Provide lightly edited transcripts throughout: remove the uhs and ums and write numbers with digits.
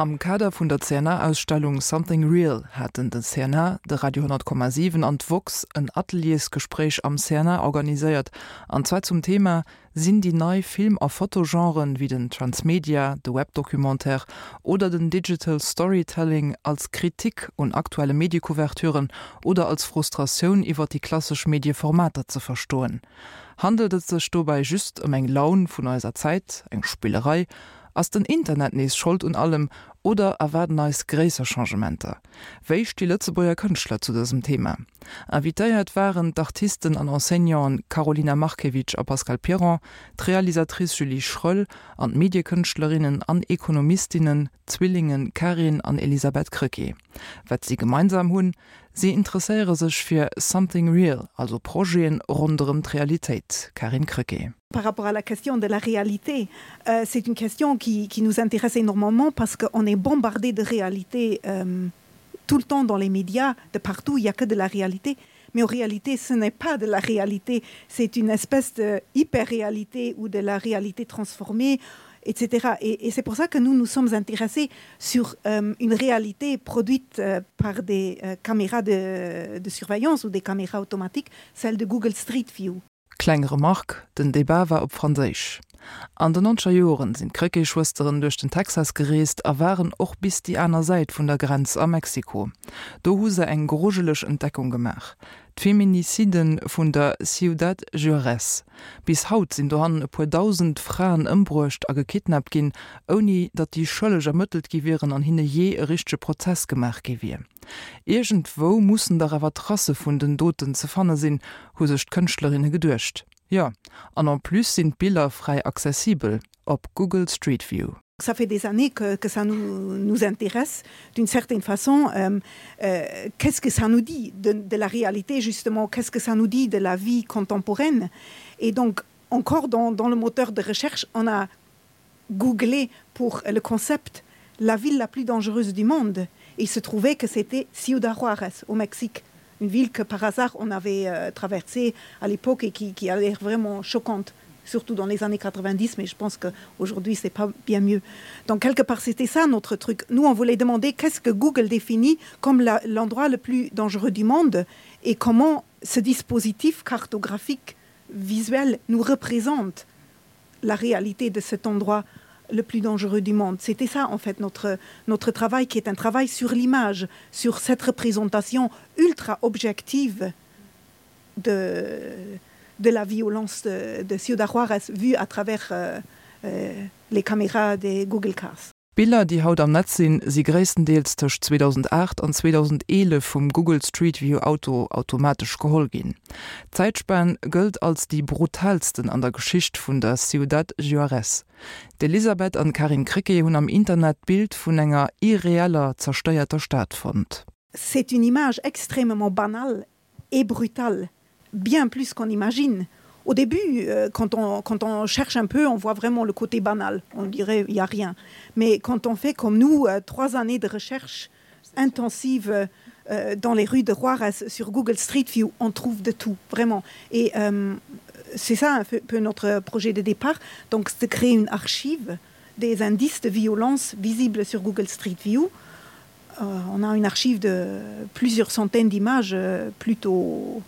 Am Kader vun der CNA-Ausstellung Something Real haten de CNA, de Radio 10,7 an d'woxx en Ateliersgespréich am CNA organiséiert, an zwar zum Thema Sinn déi nei Film a Fotogenren, wéi den Transmedia, de Webdocumentaire oder den Digital Storytelling als Kritik un aktuelle Mediecouverturen oder als Frustratioun iwwer déi klassesch Medieformater ze verstoen? Handelt et sech dobäi just ëm eng Laun vun eiser Zäit, eng Spillerei? Ass den Internet nees Schold un allem oder erwaarden eis gréisser Changementer? Wéi sti Lëtzebuerger Kënschtler zu dësem Thema? Invitéiert waren d'Artisten an Enseignanten Karolina Markiewicz a Pascal Piron, d'Realisatrice Julie Schroell an d'Mediekënschtlerinnen an Ekonomistinnen d'Zwillinge Karin an Elisabeth Krecké. Wat si gemeinsam hunn? Si interesséiere sech fir something real, also Projeten ronderëm d'Realitéit. Karin Krecké. Par rapport à la question de la réalité, euh, c'est une question qui, qui nous intéresse énormément parce qu'on est bombardé de réalité euh, tout le temps dans les médias, de partout, il n'y a que de la réalité. Mais en réalité, ce n'est pas de la réalité, c'est une espèce de hyper-réalité ou de la réalité transformée etc. Et, et c'est pour ça que nous nous sommes intéressés sur euh, une réalité produite euh, par des euh, caméras de, de surveillance ou des caméras automatiques, celle de Google Street View. Kleng Remark, Den Debat war op Franséisch. An den nonzeger Joren sinn d'Krecké-Schwësteren duerch den Texas gereest a waren och bis déi aner Säit vun der Grenz a Mexiko. Do hu se eng grujeleg Entdeckung gemaach, d'Feminiciden vun der Ciudad Juarez. Bis haut sinn dohannen e puer dausend Fraen ëmbruecht a gekidnappt ginn, ouni datt déi Schëlleg ermëttelt gi wieren an hinne jee e richtege Prozess gemaach gi wier. Iergendwou mussen dach awer Tracë vun den Doten ze fanne sinn, hu sech d'Kënschtlerinne geduecht. Jo, an en plus sinn d'Biller fräi accessibel op Google Street View. Ça fait des années que, que ça nous, nous intéresse d'une certaine façon euh, euh, qu'est-ce que ça nous dit de, de la réalité justement qu'est-ce que ça nous dit de la vie contemporaine et donc encore dans, dans le moteur de recherche on a googlé pour le concept la ville la plus dangereuse du monde et il se trouvait que c'était Ciudad Juarez au Mexique une ville que par hasard on avait euh, traversée à l'époque et qui, qui a l'air vraiment choquante surtout dans les années 90 mais je pense qu'aujourd'hui c'est pas bien mieux donc quelque part c'était ça notre truc nous on voulait demander qu'est-ce que Google définit comme l'endroit le plus dangereux du monde et comment ce dispositif cartographique visuel nous représente la réalité de cet endroit le plus dangereux du monde. C'était ça en fait notre, notre travail qui est un travail sur l'image, sur cette représentation ultra objective de, de la violence de, de Ciudad Juarez vue à travers euh, euh, les caméras des Google Cars. D'Biller, déi haut am Netz sinn, si gréisstendeels tëscht 2008 an 2011 vum Google Street View Auto automatesch geholl ginn. D'Zäitspan gëllt als déi brutaalsten an der Geschicht vun der Ciudad Juarez. D'Elisabeth an d'Karin Krecké hunn am Internet d'Bild vun enger irreeller, zerstéierter Stad fonnt. C'est une image extrêmement banale et brutale, bien plus qu'on imagine. Au début, euh, quand on, quand on cherche un peu, on voit vraiment le côté banal. On dirait il n'y a rien. Mais quand on fait comme nous euh, trois années de recherche intensive euh, dans les rues de Juarez sur Google Street View, on trouve de tout vraiment. Et euh, c'est ça un peu notre projet de départ, donc de créer une archive des indices de violence visibles sur Google Street View. Euh, on a une archive de plusieurs centaines d'images euh, plutôt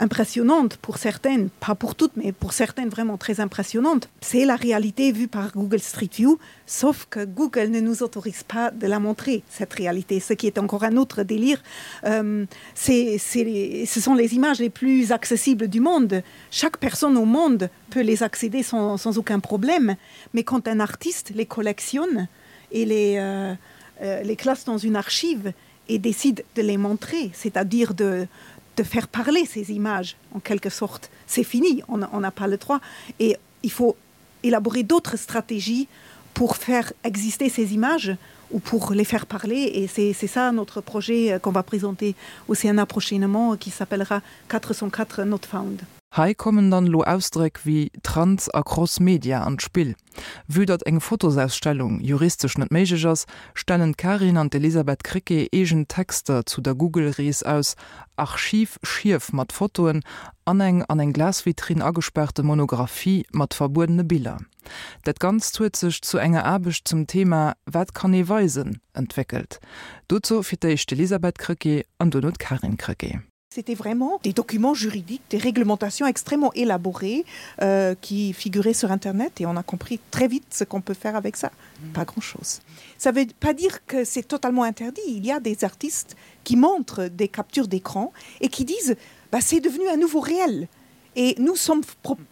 impressionnantes pour certaines, pas pour toutes, mais pour certaines vraiment très impressionnantes. C'est la réalité vue par Google Street View, sauf que Google ne nous autorise pas de la montrer, cette réalité, ce qui est encore un autre délire. Euh, c'est, c'est, ce sont les images les plus accessibles du monde. Chaque personne au monde peut les accéder sans, sans aucun problème, mais quand un artiste les collectionne et les, euh, euh, les classe dans une archive et décide de les montrer, c'est-à-dire de, de faire parler ces images en quelque sorte. C'est fini, on n'a pas le droit et il faut élaborer d'autres stratégies pour faire exister ces images ou pour les faire parler et c'est ça notre projet euh, qu'on va présenter au CNA prochainement qui s'appellera 404 not found. Hei kommen dann elo Ausdréck wéi Trans a Cross-Media an d'Spill. Vue datt eng Fotosausstellung juristesch net méiglech ass, stellen d'Karin an d'Elisabeth Krecké eegen Texter zu der Google-Rees aus, Archiv-Schief mat Fotoen an eng an eng Glasvitrinn agespaarte Monographie mat verbuedene Biller. Dat Ganzt huet sech zu enger Aarbecht zum Thema Wat kann ee weisen? entwéckelt. Dozou fir d'éischt d'Elisabeth Krecké an duerno d'Karin Krecké. C'était vraiment des documents juridiques, des réglementations extrêmement élaborées euh, qui figuraient sur Internet et on a compris très vite ce qu'on peut faire avec ça. Mmh. Pas grand-chose. Ça veut pas dire que c'est totalement interdit. Il y a des artistes qui montrent des captures d'écran et qui disent bah, c'est devenu un nouveau réel. Et nous sommes,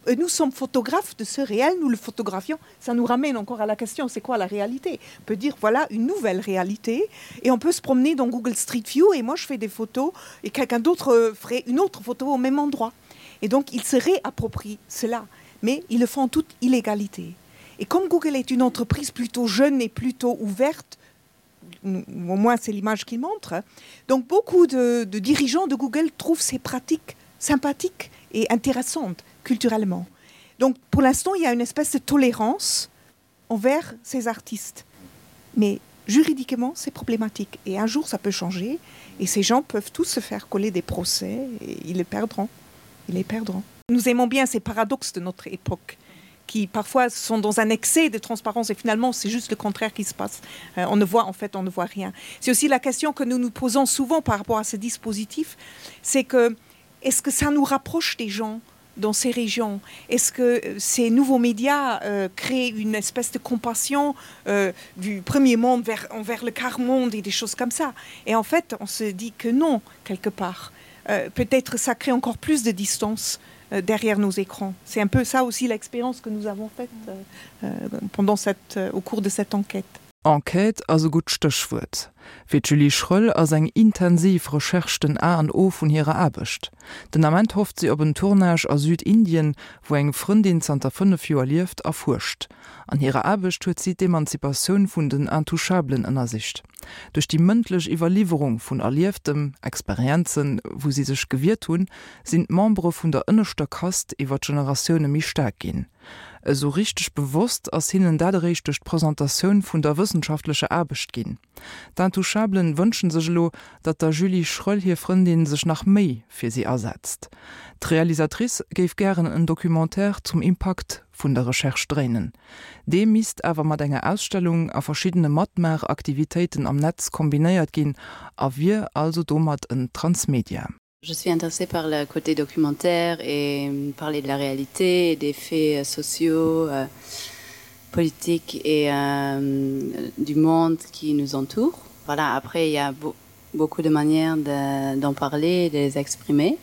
euh, nous sommes photographes de ce réel, nous le photographions. Ça nous ramène encore à la question, c'est quoi la réalité On peut dire, voilà une nouvelle réalité. Et on peut se promener dans Google Street View et moi je fais des photos et quelqu'un d'autre euh, ferait une autre photo au même endroit. Et donc ils se réapproprient cela, mais ils le font en toute illégalité. Et comme Google est une entreprise plutôt jeune et plutôt ouverte, au moins c'est l'image qu'il montre, donc beaucoup de, de dirigeants de Google trouvent ces pratiques sympathiques et intéressantes culturellement. Donc pour l'instant, il y a une espèce de tolérance envers ces artistes. Mais juridiquement, c'est problématique. Et un jour, ça peut changer et ces gens peuvent tous se faire coller des procès et ils les perdront. Ils les perdront. Nous aimons bien ces paradoxes de notre époque qui parfois sont dans un excès de transparence et finalement c'est juste le contraire qui se passe. Euh, on ne voit en fait on ne voit rien. C'est aussi la question que nous nous posons souvent par rapport à ce dispositif, c'est que est-ce que ça nous rapproche des gens dans ces régions Est-ce que euh, ces nouveaux médias euh, créent une espèce de compassion euh, du premier monde vers, envers le quart monde et des choses comme ça Et en fait, on se dit que non, quelque part. Euh, Peut-être ça crée encore plus de distance euh, derrière nos écrans. C'est un peu ça aussi l'expérience que nous avons faite euh, euh pendant cette, euh, au cours de cette enquête. Enquête ass e gutt Stéchwuert. Fir d'Julie Schroell ass eng intensiv Recherche den A an O vun hirer Aarbecht. Den Ament hofft si op en Tournage a Südindien, wou eng Frëndin zanter 5 Joer lieft a fuerscht. An hirer Aarbecht huet si d'Emanzipatioun vun den Intouchablen ënnersicht. Duerch déi mëndlech Iwwerliwwerung vun Erlieftem, Experienzen, wou si sech gewiert hunn, sinn d'Membere vun der ënneschter Kast iwwer d'Generatioune méi staark ginn. Esou richteg bewosst ass hinnen dat eréischt duerch d'Presentatioun vun der wëssenschaftlecher Aarbecht ginn. D'Intouchablen wënschen sech elo, datt der Julie Schroell hir Frëndin sech nach méi fir si asetzt. D'Realisatrice géif gären en Documentaire zum Impakt vun der Recherche dréinen. Dee misst awer mat enger Ausstellung a verschiddene Matmaach-Aktivitéiten am Netz kombinéiert ginn a wier also domat en Transmedia. Je suis intéressée par le côté documentaire et parler de la réalité et des faits sociaux, euh, politiques et euh, du monde qui nous entoure. Voilà, après il y a be beaucoup de manières d'en de, parler, de les exprimer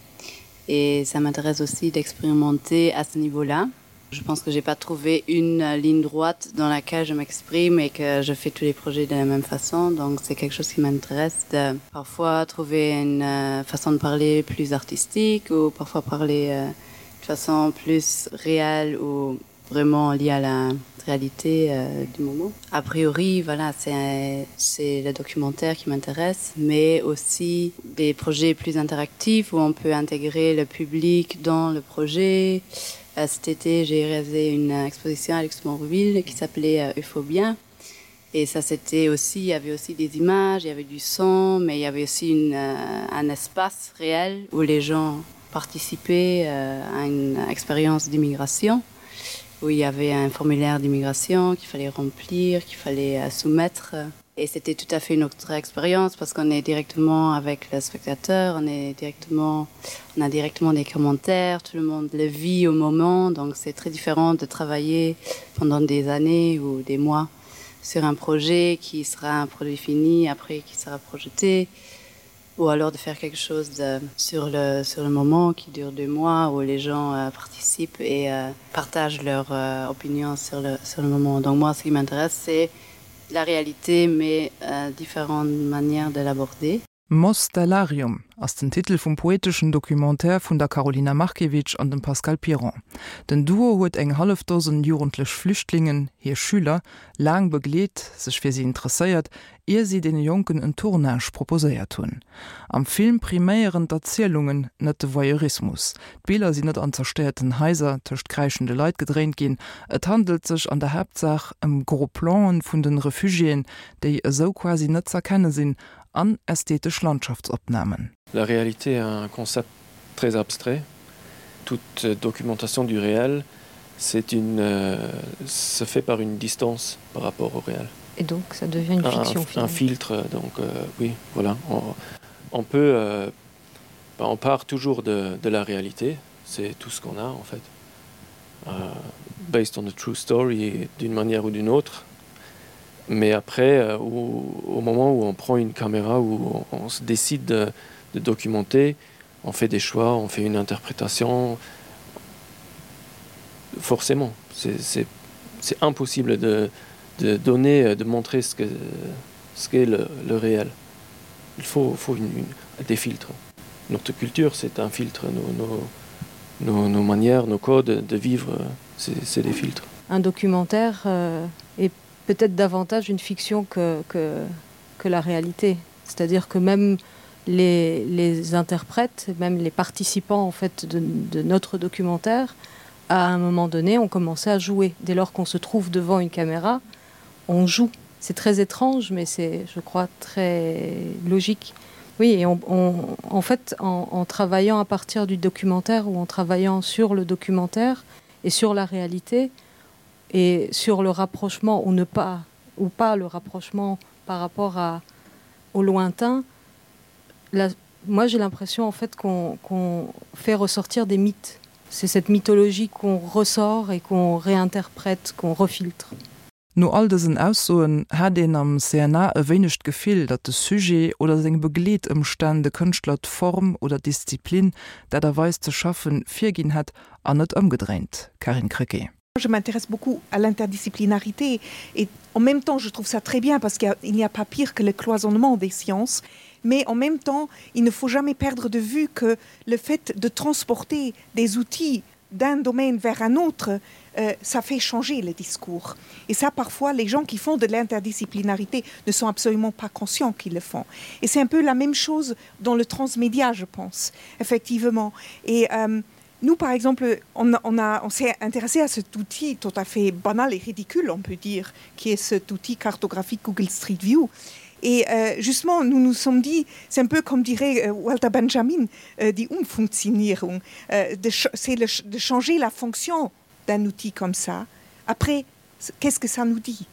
et ça m'intéresse aussi d'expérimenter à ce niveau-là. Je pense que j'ai pas trouvé une ligne droite dans laquelle je m'exprime et que je fais tous les projets de la même façon donc c'est quelque chose qui m'intéresse de parfois trouver une euh, façon de parler plus artistique ou parfois parler euh, de façon plus réelle ou vraiment liée à la réalité euh, du moment. A priori voilà c'est le documentaire qui m'intéresse mais aussi des projets plus interactifs où on peut intégrer le public dans le projet. Euh, cet été, j'ai réalisé une exposition à Luxembourgville qui s'appelait euh, Euphobia. Et ça c'était aussi il y avait aussi des images, il y avait du son, mais il y avait aussi une, euh, un espace réel où les gens participaient euh, à une expérience d'immigration où il y avait un formulaire d'immigration qu'il fallait remplir, qu'il fallait euh, soumettre. Et c'était tout à fait une autre expérience parce qu'on est directement avec le spectateur, on est directement on a directement des commentaires, tout le monde le vit au moment, donc c'est très différent de travailler pendant des années ou des mois sur un projet qui sera un produit fini après qui sera projeté ou alors de faire quelque chose de, sur le sur le moment qui dure deux mois où les gens euh, participent et euh, partagent leur euh, opinion sur le sur le moment donc moi ce qui m'intéresse c'est la réalité mais euh, différentes manières de l'aborder. Mostellarium ass den Titel vum poeteschen Documentaire vun der Karolina Markiewicz an dem Pascal Piron. Den Duo huet eng hallef Dosen jugendlech Flüchtlingen, hir Schüler, laang begleet, sech fir si interesséiert, ier si deene Jonken en Tournage proposéiert hunn. Am Film priméieren d'Erzielungen, net de Voyeurismus. D'Biller sinn net an zerstéierten Haiser tëscht kräischende Leit gedréint ginn, et handelt sech an der Haaptsaach ëm Gros Plan'en vun den Refugiéen, déi esou quasi net z'erkenne sinn, an ästhetesch Landschaftsopnamen. La réalité est un concept très abstrait. Toute documentation du réel, c'est une euh, se fait par une distance par rapport au réel. Et donc ça devient une fiction un, un filtre donc euh, oui voilà on, on peut euh, ben, on part toujours de, de la réalité c'est tout ce qu'on a en fait euh, based on the true story d'une manière ou d'une autre mais après euh, au, au moment où on prend une caméra où on, on se décide de, de documenter on fait des choix on fait une interprétation forcément c'est impossible de, de donner de montrer ce que ce qu'est le, le réel il faut, faut une, une, des filtres notre culture c'est un filtre nos, nos, nos, nos manières nos codes de vivre c'est des filtres un documentaire euh, est peut-être davantage une fiction que, que, que la réalité c'est à dire que même les, les interprètes même les participants en fait de, de notre documentaire à un moment donné ont commencé à jouer dès lors qu'on se trouve devant une caméra on joue c'est très étrange mais c'est je crois très logique oui et on, on en fait en, en travaillant à partir du documentaire ou en travaillant sur le documentaire et sur la réalité et sur le rapprochement ou ne pas ou pas le rapprochement par rapport à au lointain la, moi j'ai l'impression en fait qu'on qu fait ressortir des mythes c'est cette mythologie qu'on ressort et qu'on réinterprète qu'on refiltre No all dësen Aussoen hat een am CNA e wéineg d'Gefill, datt de Sujet oder seng Begleetëmstänn de Kënschtler d'Form oder d'Disziplin, d'Aart a Weis ze schaffen, virginn hätt an net ëmgedréint. Carine Krecké. Je m'intéresse beaucoup à l'interdisciplinarité et en même temps je trouve ça très bien parce qu'il n'y a pas pire que le cloisonnement des sciences mais en même temps il ne faut jamais perdre de vue que le fait de transporter des outils d'un domaine vers un autre, euh, ça fait changer le discours. Et ça, parfois, les gens qui font de l'interdisciplinarité ne sont absolument pas conscients qu'ils le font. Et c'est un peu la même chose dans le transmédia, je pense, effectivement. Et euh, nous, par exemple, on, on, on s'est intéressé à cet outil tout à fait banal et ridicule, on peut dire, qui est cet outil cartographique Google Street View. Et euh, justement, nous nous sommes dit, c'est un peu comme dirait euh, Walter Benjamin, euh, die Umfunktionierung, euh, c'est de changer la fonction d'un outil comme ça. Après, qu'est-ce que ça nous dit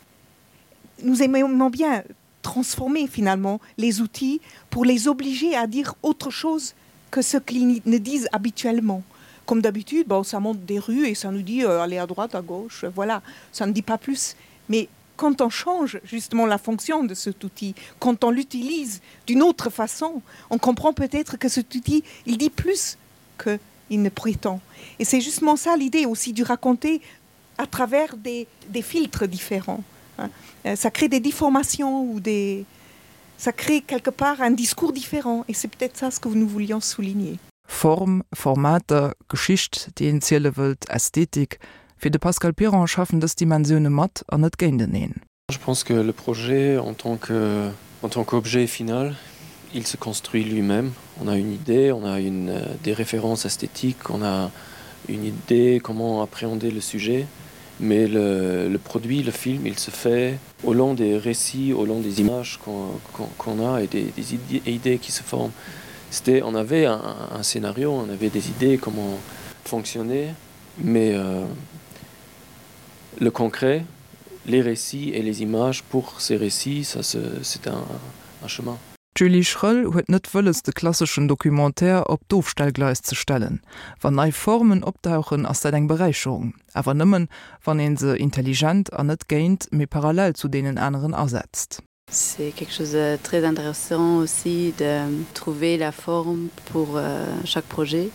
Nous aimons bien transformer finalement les outils pour les obliger à dire autre chose que ce qu'ils ne disent habituellement. Comme d'habitude, bon, ça monte des rues et ça nous dit euh, aller à droite, à gauche, voilà, ça ne dit pas plus. Mais quand on change justement la fonction de cet outil, quand on l'utilise d'une autre façon, on comprend peut-être que cet outil il dit plus que il ne prétend. Et c'est justement ça l'idée aussi du raconter à travers des, des filtres différents. Hein. Euh, ça crée des déformations ou des ça crée quelque part un discours différent et c'est peut-être ça ce que nous voulions souligner. Form, Formater, Geschicht, déi een ziele wëllt, Ästhetik, fir de Pascal Piron schaffen dës Dimensioune mat an net géinteneen. Je pense que le projet en tant que en tant qu'objet final, il se construit lui-même. On a une idée, on a une, euh, des références esthétiques, on a une idée comment appréhender le sujet, mais le, le produit, le film, il se fait au long des récits, au long des images qu'on qu qu a et des, des idées, idées qui se forment. C'était, on avait un, un scénario, on avait des idées comment fonctionner, mais euh, le concret, les récits et les images pour ces récits, ça c'est un, un chemin. D'Julie Schroell huet net wëlles de klasseschen Documentaire op d'Ofstellgleis ze stellen. Wann nei Formen opdauchen, ass dat eng Beräicherung, awer nëmmen, wann ee se intelligent an net géint, mee parallel zu deenen aneren asetzt. C'est quelque chose de très intéressant aussi de trouver la forme pour euh, chaque projet.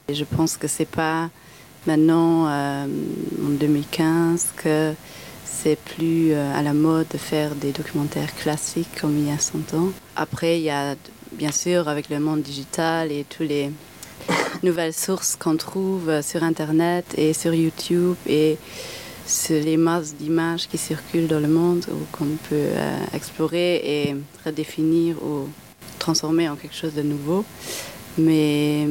Et je pense que c'est pas maintenant euh, en 2015 que c'est plus euh, à la mode de faire des documentaires classiques comme il y a 100 ans. Après il y a. bien sûr avec le monde digital et tous les nouvelles sources qu'on trouve sur internet et sur YouTube et sur les masses d'images qui circulent dans le monde ou qu'on peut euh, explorer et redéfinir ou transformer en quelque chose de nouveau. Mais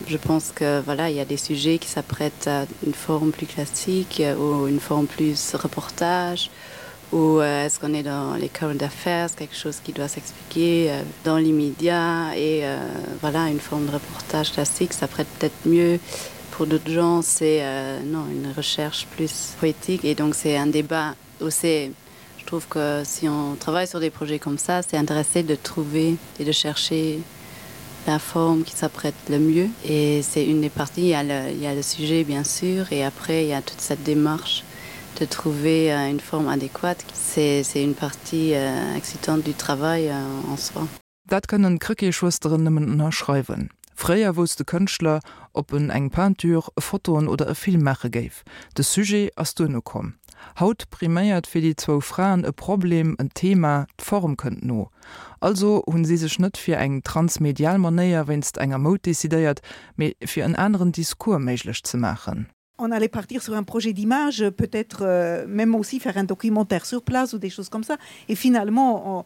je pense que voilà, il y a des sujets qui s'apprêtent à une forme plus classique ou une forme plus reportage ou euh, est-ce qu'on est dans les current affairs, quelque chose qui doit s'expliquer euh, dans l'immédiat et euh, voilà une forme de reportage classique, ça prête peut-être mieux pour d'autres gens, c'est euh, non une recherche plus poétique et donc c'est un débat où c'est je trouve que si on travaille sur des projets comme ça, c'est intéressé de trouver et de chercher la forme qui s'apprête le mieux et c'est une des parties il y, a le, il y a le sujet bien sûr et après il y a toute cette démarche de trouver euh, une forme adéquate c'est une partie euh, excitante du travail euh, en soi. Dat kënnen d'Krecké-Schwësteren nëmmen ënnerschreiwen. Fréier wousst de Kënschtler, ob en eng Peinture, Fotoen oder e Film maache géif. De Sujet ass duerno komm. Haut priméiert fir déi zwou Fraen e Problem, en Thema, d'Form kënnt no. Also hunn si sech net fir eng transmedial Manéier wéinst enger Moud decidéiert, mee fir en aneren Discours méiglech ze maachen. On allait partir sur un projet d'image, peut-être euh, même aussi faire un documentaire sur place ou des choses comme ça. Et finalement, on,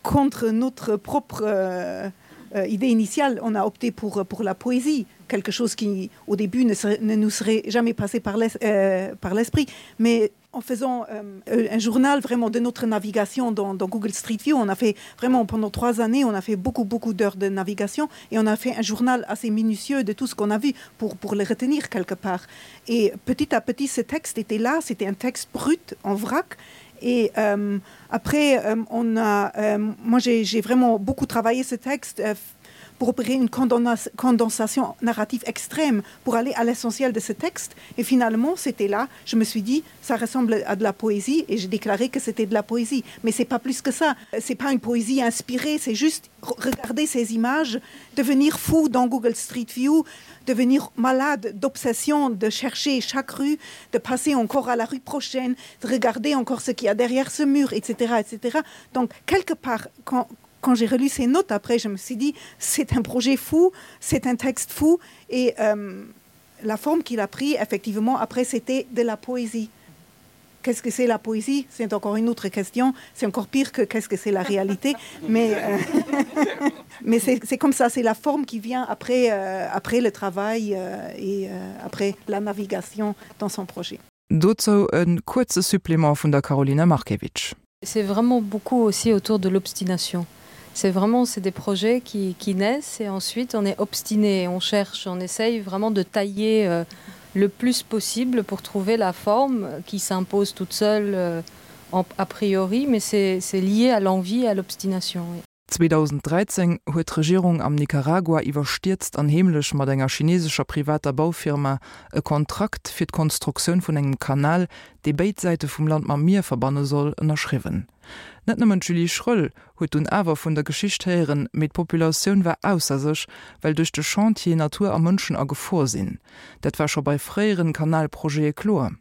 contre notre propre euh, euh, idée initiale, on a opté pour, pour la poésie, quelque chose qui au début ne, serait, ne nous serait jamais passé par l'esprit. Euh, Mais en faisant euh, un journal vraiment de notre navigation dans, dans Google Street View, on a fait vraiment pendant trois années, on a fait beaucoup beaucoup d'heures de navigation et on a fait un journal assez minutieux de tout ce qu'on a vu pour, pour le retenir quelque part. Et petit à petit, ce texte était là, c'était un texte brut en vrac. Et euh, après, euh, on a, euh, moi j'ai vraiment beaucoup travaillé ce texte euh, pour opérer une condensation narrative extrême pour aller à l'essentiel de ce texte. Et finalement, c'était là, je me suis dit, ça ressemble à de la poésie et j'ai déclaré que c'était de la poésie. Mais c'est pas plus que ça. C'est pas une poésie inspirée, c'est juste regarder ces images, devenir fou dans Google Street View, devenir malade d'obsession, de chercher chaque rue, de passer encore à la rue prochaine, de regarder encore ce qu'il y a derrière ce mur, etc. etc. Donc quelque part, quand, quand j'ai relu ces notes après, je me suis dit c'est un projet fou, c'est un texte fou et euh, la forme qu'il a pris effectivement après c'était de la poésie. Qu'est-ce que c'est la poésie C'est encore une autre question, c'est encore pire que qu'est-ce que c'est la réalité mais, euh, mais c'est comme ça, c'est la forme qui vient après, euh, après le travail euh, et euh, après la navigation dans son projet. Dozou e kuerze Supplément vun der Karolina Markiewicz. C'est vraiment beaucoup aussi autour de l'obstination. C'est vraiment c'est des projets qui, qui naissent et ensuite on est obstiné, on cherche, on essaye vraiment de tailler euh, le plus possible pour trouver la forme qui s'impose toute seule euh, en, a priori, mais c'est lié à l'envie et à l'obstination. Oui. 2013 huet d'Regierung am Nicaragua iwwerstierzt an heemlech mat enger chinesescher privater Baufirma e Kontrakt fir d'Konstruktioun vun engem Kanal, dee béid Säite vum Land mam Mier verbanne soll, ënnerschriwwen. Net nëmmen d'Julie Schroell huet dunn awer vun der Geschicht héieren, mee d'Populatioun war ausser sech, well duerch de Chantier Natur a Mënschen a Gefor sinn. Dat war scho bei fréieren Kanalprojete kloer.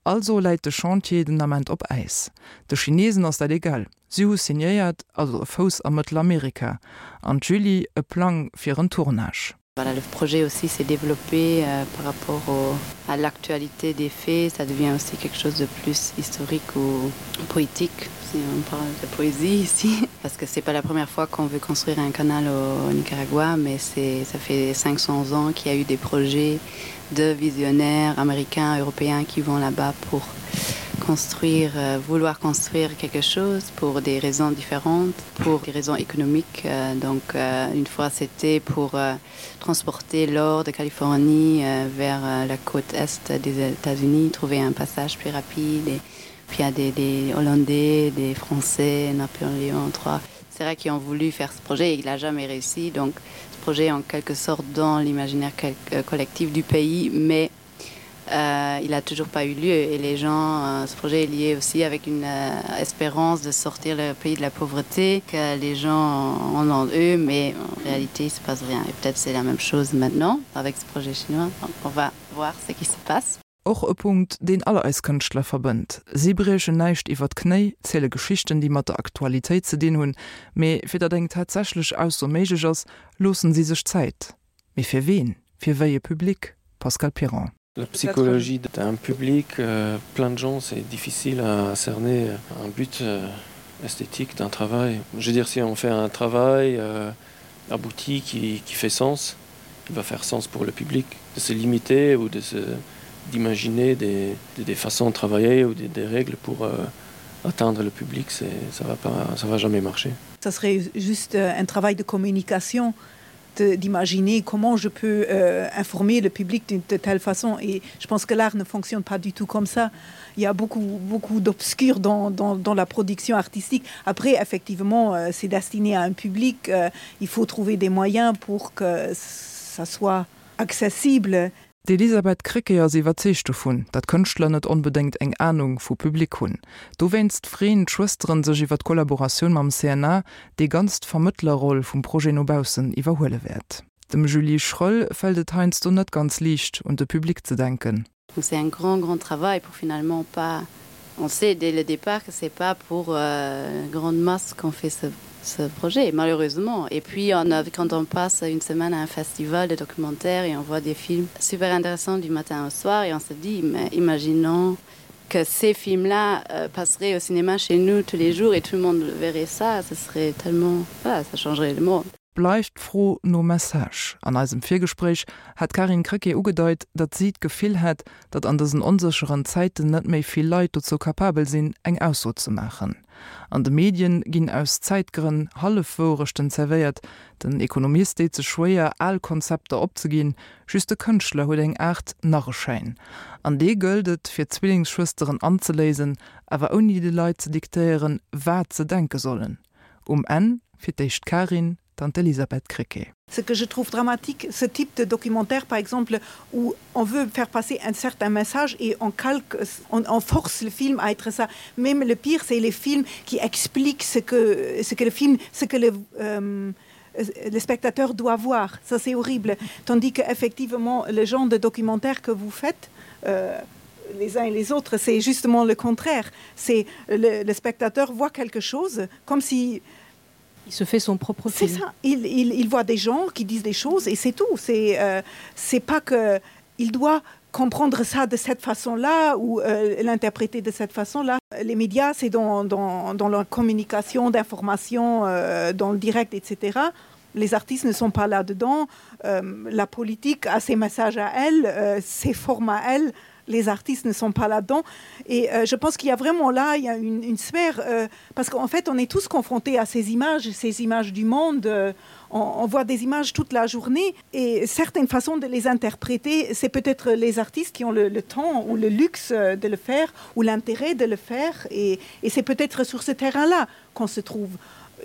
Also läit de Chantier den Ament op Äis. De Chinesen ass dat egal, si hu signéiert, also e Fouss a Mëttelamerika. An d'Julie e Plang fir en Tournage. Voilà, le projet aussi s'est développé euh, par rapport au, à l'actualité des faits, ça devient aussi quelque chose de plus historique ou poétique si on parle de poésie ici parce que c'est pas la première fois qu'on veut construire un canal au, au Nicaragua mais c'est ça fait 500 ans qu'il y a eu des projets de visionnaires américains européens qui vont là-bas pour construire euh, vouloir construire quelque chose pour des raisons différentes pour des raisons économiques euh, donc euh, une fois c'était pour euh, transporter l'or de Californie euh, vers euh, la côte est des États-Unis trouver un passage plus rapide et puis il y a des, des hollandais des français Napoléon III c'est vrai qui ont voulu faire ce projet et il n'a jamais réussi donc ce projet en quelque sorte dans l'imaginaire euh, collectif du pays mais euh, il n'a toujours pas eu lieu et les gens euh, ce projet est lié aussi avec une euh, espérance de sortir le pays de la pauvreté que les gens en ont eux mais en réalité il se passe rien et peut-être c'est la même chose maintenant avec ce projet chinois donc on va voir ce qui se passe. Och e Punkt, deen all eis Kënschtler verbënnt. Si briechen näischt iwwer d'Knéi, ziele Geschichten, déi mat der Aktualitéit ze dinn hunn, mee fir datt eng tatsächlech Ausso méiglech ass, loossen si sech Zäit. Mee fir ween? Fir wéi e Public? Pascal Piron. La psychologie d'un public plein de gens, c'est difficile à cerner un but esthétique d'un travail. Je veux dire si on fait un travail euh, abouti qui, qui fait sens, il va faire sens pour le public de se limiter ou de se d'imaginer des, des, des façons de travailler ou des, des règles pour euh, atteindre le public, ça va pas ça va jamais marcher. Ça serait juste euh, un travail de communication d'imaginer comment je peux euh, informer le public d'une de telle façon et je pense que l'art ne fonctionne pas du tout comme ça il y a beaucoup beaucoup d'obscur dans, dans, dans la production artistique après effectivement euh, c'est destiné à un public euh, il faut trouver des moyens pour que ça soit accessible D'Elisabeth Krecké ass iwwerzeegt dovun, datt Kënschtler net onbedéngt eng Anung vu Public hunn. Dowéinst freeën d'Schwësteren sech iwwer d'Kollaboratioun mam CNA, dee ganz d'Vermëttlerroll vum Projet no baussen iwwerhuele wäert. Dem Julie Schroell fält et heiansdo net ganz liicht, un de Public ze denken. Donc c'est un grand grand travail pour finalement pas on sait dès le départ que c'est pas pour euh, grande masse qu'on fait ce ce projet malheureusement et puis on a quand on passe une semaine à un festival de documentaires et on voit des films super intéressants du matin au soir et on se dit mais imaginons que ces films là euh, passeraient au cinéma chez nous tous les jours et tout le monde verrait ça ce serait tellement voilà, ça changerait le monde. Bleift d'Fro nom Message. An eisem Virgespréich hat d'Karin Krecké ugedeit, datt si d'Gefill hätt, datt an dësen onsécheren Zäiten net méi vill Leit dozou kapabel sinn, eng Ausso ze maachen. An de Medien ginn aus Zäitgrënn Hallefwouerechten zerwéiert. Den Ekonomist deet sech schwéier, al Konzepter opzeginn. Just de Kënschtler huet eng Aart Narreschäin. An dee gëllt et, fir d'Zwillingsschwësteren anzeléisen, awer ouni de Leit ze diktéieren, wat se denke sollen. Um Enn fir d'éischt d'Karin, dann d'Elisabeth Krecké. Ce que je trouve dramatique, ce type de documentaire par exemple où on veut faire passer un certain message et on calque on, on force le film à être ça. Même le pire c'est les films qui expliquent ce que, ce que le film ce que le euh, le spectateur doit voir ça c'est horrible tandis que effectivement le genre de documentaire que vous faites euh, les uns et les autres c'est justement le contraire c'est le, le spectateur voit quelque chose comme si il se fait son propre film ça il, il, il voit des gens qui disent des choses et c'est tout c'est euh, c'est pas que il doit comprendre ça de cette façon là ou euh, l'interpréter de cette façon là les médias c'est dans, dans, dans leur communication d'information euh, dans le direct etc les artistes ne sont pas là dedans euh, la politique a ses messages à elle euh, ses formes à elle les artistes ne sont pas là dedans et euh, je pense qu'il y a vraiment là il y a une, une sphère euh, parce qu'en fait on est tous confrontés à ces images ces images du monde euh, on, on voit des images toute la journée et certaines façons de les interpréter c'est peut-être les artistes qui ont le, le temps ou le luxe euh, de le faire ou l'intérêt de le faire et, et c'est peut-être sur ce terrain là qu'on se trouve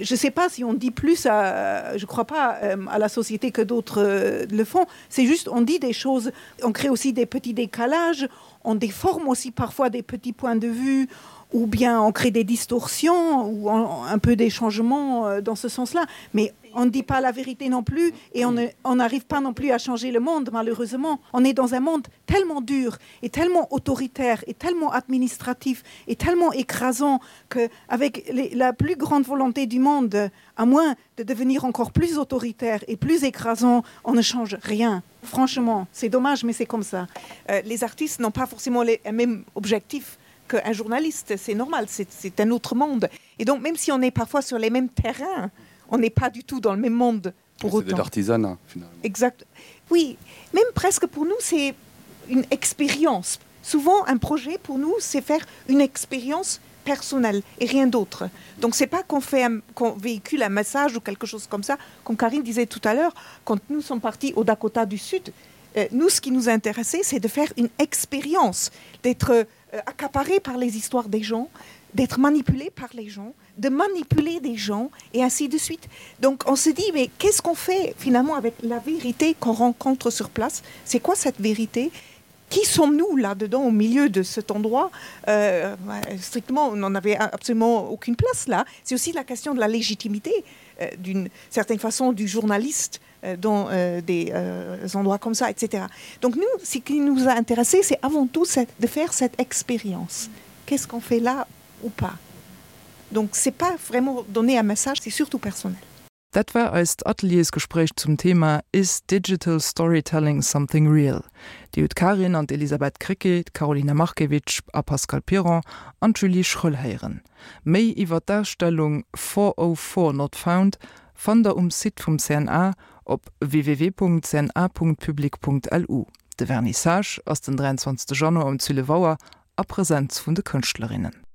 je sais pas si on dit plus à, je crois pas euh, à la société que d'autres euh, le font c'est juste on dit des choses on crée aussi des petits décalages on déforme aussi parfois des petits points de vue ou bien on crée des distorsions ou on, un peu des changements euh, dans ce sens là mais on ne dit pas la vérité non plus et on n'arrive pas non plus à changer le monde malheureusement on est dans un monde tellement dur et tellement autoritaire et tellement administratif et tellement écrasant que avec les, la plus grande volonté du monde à moins de devenir encore plus autoritaire et plus écrasant on ne change rien franchement c'est dommage mais c'est comme ça euh, les artistes n'ont pas forcément les mêmes objectifs qu'un journaliste c'est normal c'est un autre monde et donc même si on est parfois sur les mêmes terrains on n'est pas du tout dans le même monde pour autant l'artisanat finalement exact oui même presque pour nous c'est une expérience souvent un projet pour nous c'est faire une expérience personnelle et rien d'autre donc c'est pas qu'on fait qu'on véhicule un message ou quelque chose comme ça comme Karine disait tout à l'heure quand nous sommes partis au Dakota du Sud euh, nous ce qui nous intéressait c'est de faire une expérience d'être euh, accaparé par les histoires des gens d'être manipulé par les gens de manipuler des gens et ainsi de suite. Donc on se dit mais qu'est-ce qu'on fait finalement avec la vérité qu'on rencontre sur place C'est quoi cette vérité Qui sommes-nous là-dedans au milieu de cet endroit euh, Strictement, on n'en avait absolument aucune place là. C'est aussi la question de la légitimité. euh, d'une certaine façon du journaliste euh, dans euh, des euh, endroits comme ça, etc. Donc nous, ce qui nous a intéressé, c'est avant tout cette, de faire cette expérience. Qu'est-ce qu'on fait là ou pas Donc c'est pas vraiment donner un message, c'est surtout personnel. Dat war eist Ateliersgespréich zum Thema Is digital storytelling something real? Dir hutt d'Karin an d'Elisabeth Krecké, d'Karolina Markiewicz a Pascal Piron an d'Julie Schroell héieren. Méi iwwer d'Ausstellung 404 Not Found fannt der um Site vum CNA op www.cna.public.lu. De Vernissage ass den 23 Januar um 12 Auer a Presenz vun de Kënschtlerinnen.